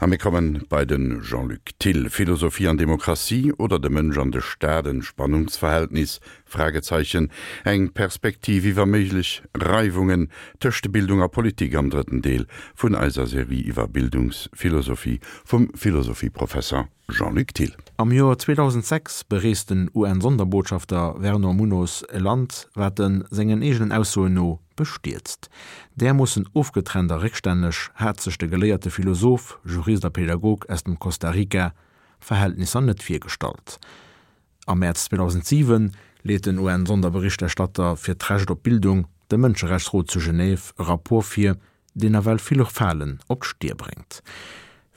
A mir kommen bei de Jean-Luc Thill. Philosophie an Demokratie oder de Mënsch an de Staat, en Spannungsverhältnis? Fragezeichen. Eng Perspektiv iwwer méiglech Reiwungen tëscht de Bildung a Politik am drëtten Deel vun eiser Serie iwwer Bildungsphilosophie vum Philosophieprofesser Jean-Luc Thill. Am Joer 2006 bereest den UN-Sonderbotschafter Vernor Munoz e Land, wat en sengen eegenen Aussoen no bestierzt. Därmoossen ofgetrennt a réckstänneg hat sech de geléierte Philosoph, Jurist a Pädagog aus dem Costa Rica Verhältnisser net virgestallt. Am Mäerz 2007 leet den UN-Sonderberichterstatter fir d'Recht op Bildung dem Mënscherechtsrot zu Genève e Rapport vir, deen nawell vill Falen op d'Stier bréngt.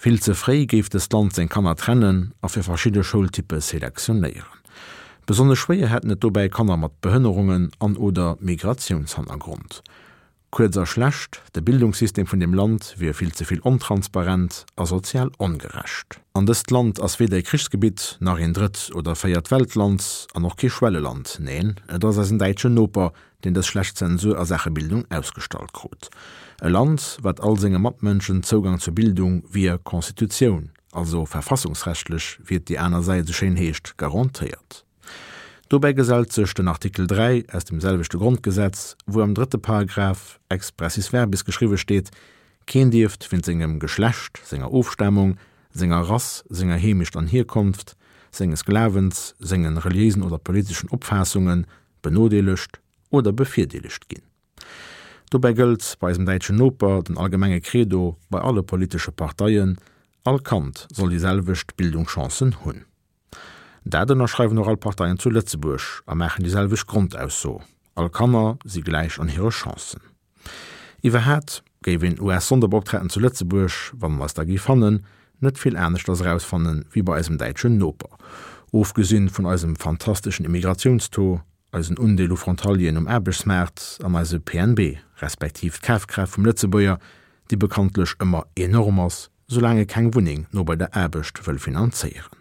Vill ze fréi géif dëst Land seng Kanner trennen a fir verschidde Schoultyppe selektionéieren. Besonnesch schwéier hätten et dobäi Kanner mat Behënnerungen an oder Migratiounshannergrond. Kuerz a schlecht, de Bildungssystem vun deem Land wier vill ze vill ontransparent a sozial ongerecht. An dëst Land ass weder e Krichsgebitt, nach een Drëtt oder Véiert Weltland an och kee Schwelleland. Neen, et ass eisen däitschen Noper, deen dës schlecht Zensur a Saache Bildung ausgestallt krut. E Land, wat all senge Matmënschen Zougang zur Bildung via Constitutioun, also verfassungsrechtlech, wéi et déi aner Säit esou schéin heescht, garantéiert. Dobäi gesellt sech den Artikel 3 aus dem selwechte Grondgesetz, wou am drëtte Paragraph expressis verbis geschriwwe steet, Keen dierft wéint sengem Geschlecht, senger Ofstamung, senger Rass, senger Heemecht an Hierkonft, senges Glawens, sengen reliéisen oder politeschen Opfaassungen benodeelegt oder bevirdeelegt ginn. Dobäi gëllt bei eisem däitschen Noper den allgemenge Credo bei alle politesche Parteien, All Kand soll déi selwecht Bildungschancen hunn. Dat ënnerschreiwen och all Parteien zu Lëtzebuerg a maachen déi selwecht Grondausso, All Kanner si gläich an hire Chancen. Iwwerhaat géif een US-Sonderbeoptraten zu Lëtzebuerg, wann en eis da géif fannen, net vill aneschters erausfannen wéi bei eisem däitschen Noper. Ofgesinn vun eisem fantasteschen Immigratiounstaux, eisen Undeel u Frontalieren um Aarbechtsmaart an eise PNB, respektiv d'Kafkraaft vum Lëtzebuerger, déi bekanntlech ëmmer enorm ass, soulaang e keng Wunneng no bei der Aarbecht wëll finanzéieren.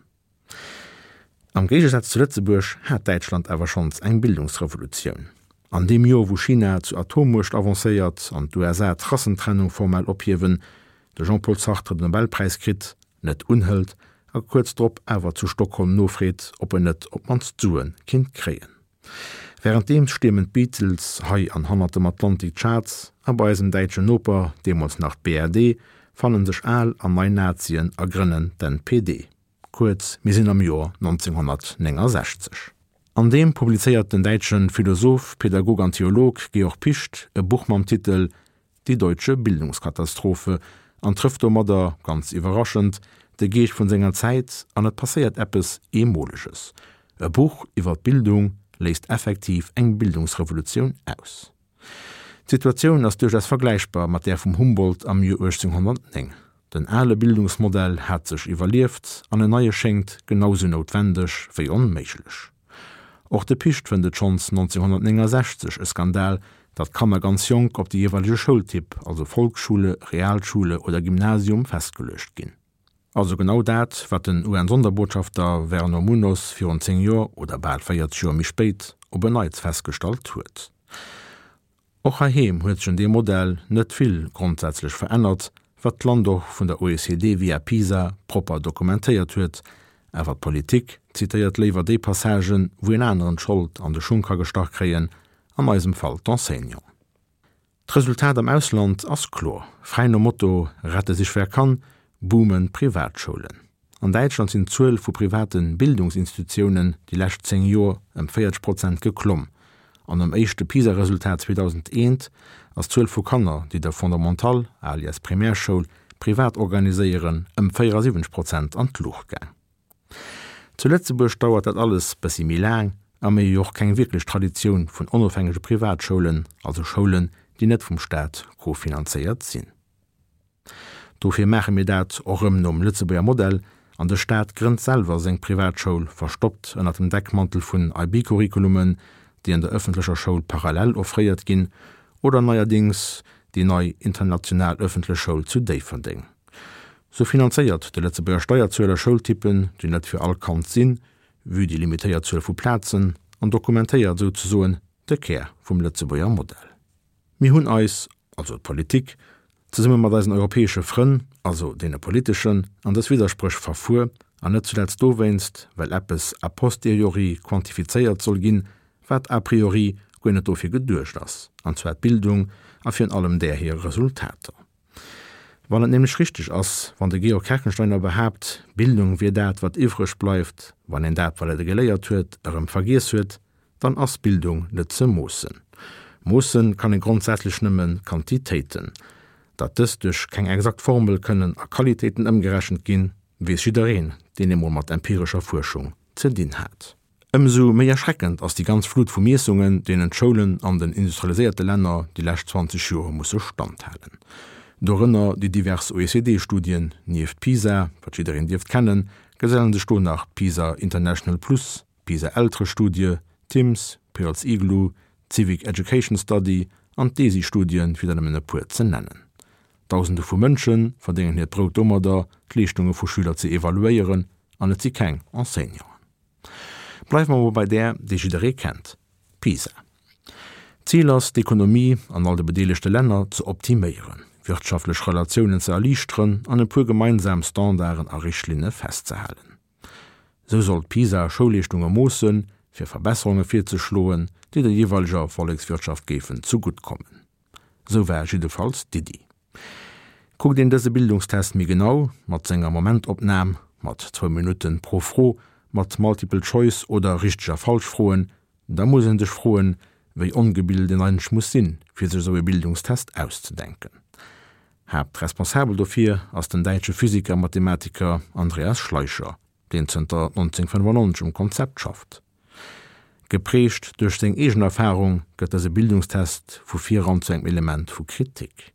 Am Géigesaz zu Lëtzebuerg hat Däitschland awer schonns eng Bildungsrevolutioun. An deem Joer wou China zur Atommuecht avancéiert an d'USA d'Rassentrennung formell ophiewen, de Jean-Paul Sartre den Nobelpräis kritt, net unhëlt a kuerz drop awer zu Stockholm nofreet, ob en net op d'mannst Sue kinnt kréien. Wärenddeems stiermen d'Beatles hei an hannert dem Atlantik d'Charts a bei eisem däitschen Noper, deemools nach d'BRD, fannen sech al an nei Nazien a grënnen d'NPD. Kuerz, mir sinn am Joer 1969. An deem publizéiert den däitsche Philosoph, Pädagog an Theolog Georg Picht e Buch mam Titel Die deutsche Bildungskatastrophe an trëfft domadder, ganz iwwerraschend, de Geescht vun senger Zäit an et passéiert eppes Eemoleges, E Buch iwwer d'Bildung léist effektiv eng Bildungsrevolutioun aus. D'Situatioun ass duerchaus vergläichbar mat där vum Humboldt am Joer 1809. Den ale Bildungsmodell hat sech iwwerlieft an en neie schéngt genau sou noutwendeg wéi onméiglech. Och de Picht fënnt et schonns 1969 e Skandal, datt Kanner ganz jonk op de jeeweilege Schoultyp, also Volksschule, Realschule oder Gymnasium, festgeluecht ginn. Also genau dat, wat den UN-Sonderbotschafter Vernor Munoz virun 10 Joer, oder bal 40 Joer méi spéit, op en Neits festgestallt huet. Och heiheem huet sech un deem Modell net vill grondsätzlech verännert, wat d'Land och vun der OECD via PISA propper dokumentéiert huet. Awer d'Politik zitéiert léiwer déi Passagen, wou een aneren d'Schold an de Schung ka gestach kréien, an eisem Fall d'Enseignanten. D'Resultat am Ausland ass kloer, Fräi nom Motto Rette sich wer kann boomen d'Privatschoulen. An Däitschland sinn d'Zuel vu private Bildungsinstitutiounen déi lescht 10 Joer ëm 40 Prozent geklomm. An nom éischte PISA-Resultat 2001 ass d'Zuel vu Kanner, déi de Fondamental, alias Primärschoul, privat organiséieren, ëm 74 Prozent an d'Luucht gaang. Zu Lëtzebuerg dauert dat alles bëssi méi laang a mir hu jo och keng wierklech Traditioun vun onofhängege Privatschoulen, also Schoulen, déi net vum Staat kofinanzéiert sinn. Dofir maache mir dat och rëm nom Lëtzebuerger Modell an de Staat grënnt selwer seng Privatschoul, verstoppt ënnert dem Deckmantel vun IB-Curriculumen, déi an der ëffentlecher Schoul parallel offréiert ginn, oder neierdings déi nei international ëffentlech Schoul zu Déifferdeng. Sou finanzéiert de Lëtzebuerger Steierzueler Schoultypen, déi net fir all Kand sinn, vue déi limitéiert Zuel vu Plazen, an dokumentéiert souzesoen de Kär vum Lëtzebuerger Modell. Mir hunn eis, also d'Politik, Zesumme mat eisen europäesche Frënn, also deene politeschen, an dës Widderspréch verfuer, an net zuletzt dowéinst, well eppes a posteriori quantifizéiert soll ginn, wat a priori guer net dofir geduecht ass, an zwar d'Bildung a virun allem där hir Resultater. Wann et nämlech richteg ass, wann de Georg Kerkensteiner behaapt, Bildung wier dat, wat iwwreg bleift, wann een dat, wat e geléiert huet, erëm vergiess huet, dann ass Bildung net ze moossen. Moosse kann ee grondsätzlech nëmme Quantitéiten. Datt dës duerch keng exakt Formel kënnen a Qualitéiten ëmgerechent ginn, weess jiddereen, deen emol mat empirescher Fuerschung ze dinn hat. Ëmsou méi erschreckend ass déi ganz Flut vu Miessungen, deenen d'Schoulen an den industrialiséierte Länner déi lescht 20 Joer musse standhalen. Dorënner déi divers OECD-Studien. Nieft PISA, wat jiddereen dierft kennen, gesellen sech do nach d'PISA International Plus, d'PISA-Elterestudie, TIMSS, Pearls Igloo, d'Civic Education Study an d'DESI-Studien, fir der nëmmen e puer ze nennen. Dausende vu Mënsche verdéngen hiert Brout domadder, d'Leeschtunge vu Schüler ze evaluéieren, an et si keng Enseignanten. Bleiwe mer mol bei där, déi jidderee kennt, PISA. D'Zil ass, d'Ekonomie an all de bedeelegte Länner ze optiméieren, wirtschaftlech Relatiounen ze erliichteren an e puer gemeinsam Standarden a Richtlinne festzehalen. Sou soll d'PISA Schoulleeschtunge moossen, fir Verbesserunge virzeschloen, déi der jeeweileger Vollekswirtschaft géifen zegutt kommen. Sou war jiddefalls d'Iddi. Kuckt een dëse Bildungstest méi genau, mat senger Momentopnam, mat zwou Minutten pro Fro, mat Multiple Choice oder Richteg a Falsch Froen, da muss een sech froen, wéi ongebilt een eigentlech muss sinn, fir sech esou e Bildungstest auszedenken. Haaptresponsabel dofir ass den däitsche Physiker a Mathematiker Andreas Schleicher, deen zënter 1995 um Konzept schafft. Geprägt duerch seng eegen Erfarung gëtt dëse Bildungstest vu viran zu engem Element vu Kritik.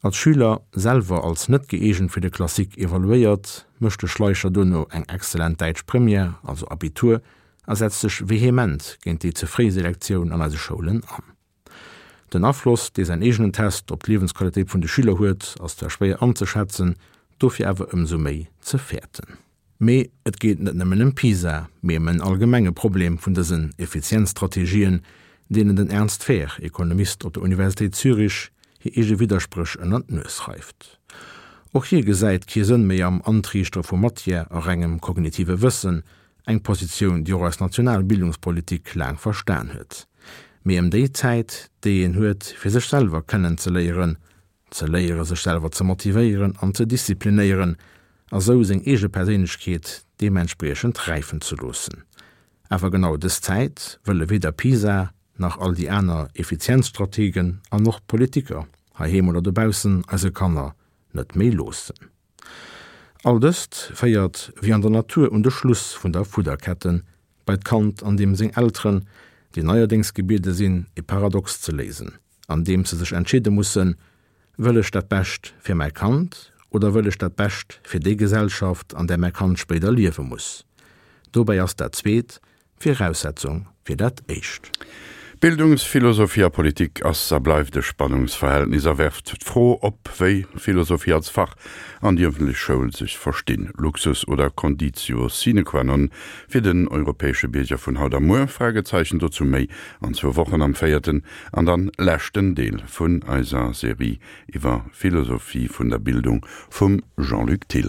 Als Schüler selwer als net gëeegent fir de Classique evaluéiert, mécht de Schleicher duerno eng exzellent däitsch Première, also Abitur, a setzt sech vehement géint déi ze fréi Selektioun an eise Schoulen an. Den Afloss, dee säin eegenen Test op d'Liewensqualitéit vun de Schüler huet, ass zwar schwéier anzeschätzen, dofir awer ëmsou méi ze fäerten. Mee et geet net nëmmen ëm PISA, mee ëm en allgemenge Problem vun dësen Effizienzstrategien, deenen den Ernst Fehr, Ekonomist op der Universitéit Zürich, hir eege Widderspréch ënner d'Nues reift. Och hie gesäit kee Sënn méi am Antriichtere vu Matière a rengem kognitive Wëssen, Eng Positioun, déi och eis national Bildungspolitik laang verstan huet. Mee ëm déi Zäit, déi een huet, fir sech selwer kennen ze léieren, ze léiere sech selwer ze motivéieren an ze disziplinéieren a sou seng eege Perséinlechkeet deementspriechend räifen ze loossen. Awer genau dës Zäit wëlle weder PISA nach all déi aner Effizienzstrategen an och d'Politiker, heiheem oder dobaussen, eise Kanner net méi loossen. All dëst féiert, wéi an der Natur, un de Schluss vun der Fudderketten, bei d'Kand an deem seng Elteren, déi neierdéngs gebiede sinn, e Paradox ze léisen, andeems se sech entscheede mussen, Wëll ech dat Bescht fir mäi Kand oder wëll ech dat Bescht fir déi Gesellschaft, an där mäi Kand spéider liewe muss? Dobäi ass dat Zweet Viraussetzung fir dat Éischt. Bildungsphilosophie a Politik ass a bleift e Spannungsverhältnis a werft d'Fro op, wéi Philosophie als Fach an déi ëffentlech Schoul sech verstinn. Luxus oder Conditio sine qua non fir den europäesche Bierger vun haut a muer? Fragezeichen. Dozou méi an zwou Wochen am véierten an dann leschten Deel vun eiser Serie iwwer Philosophie vun der Bildung vum Jean-Luc Thill.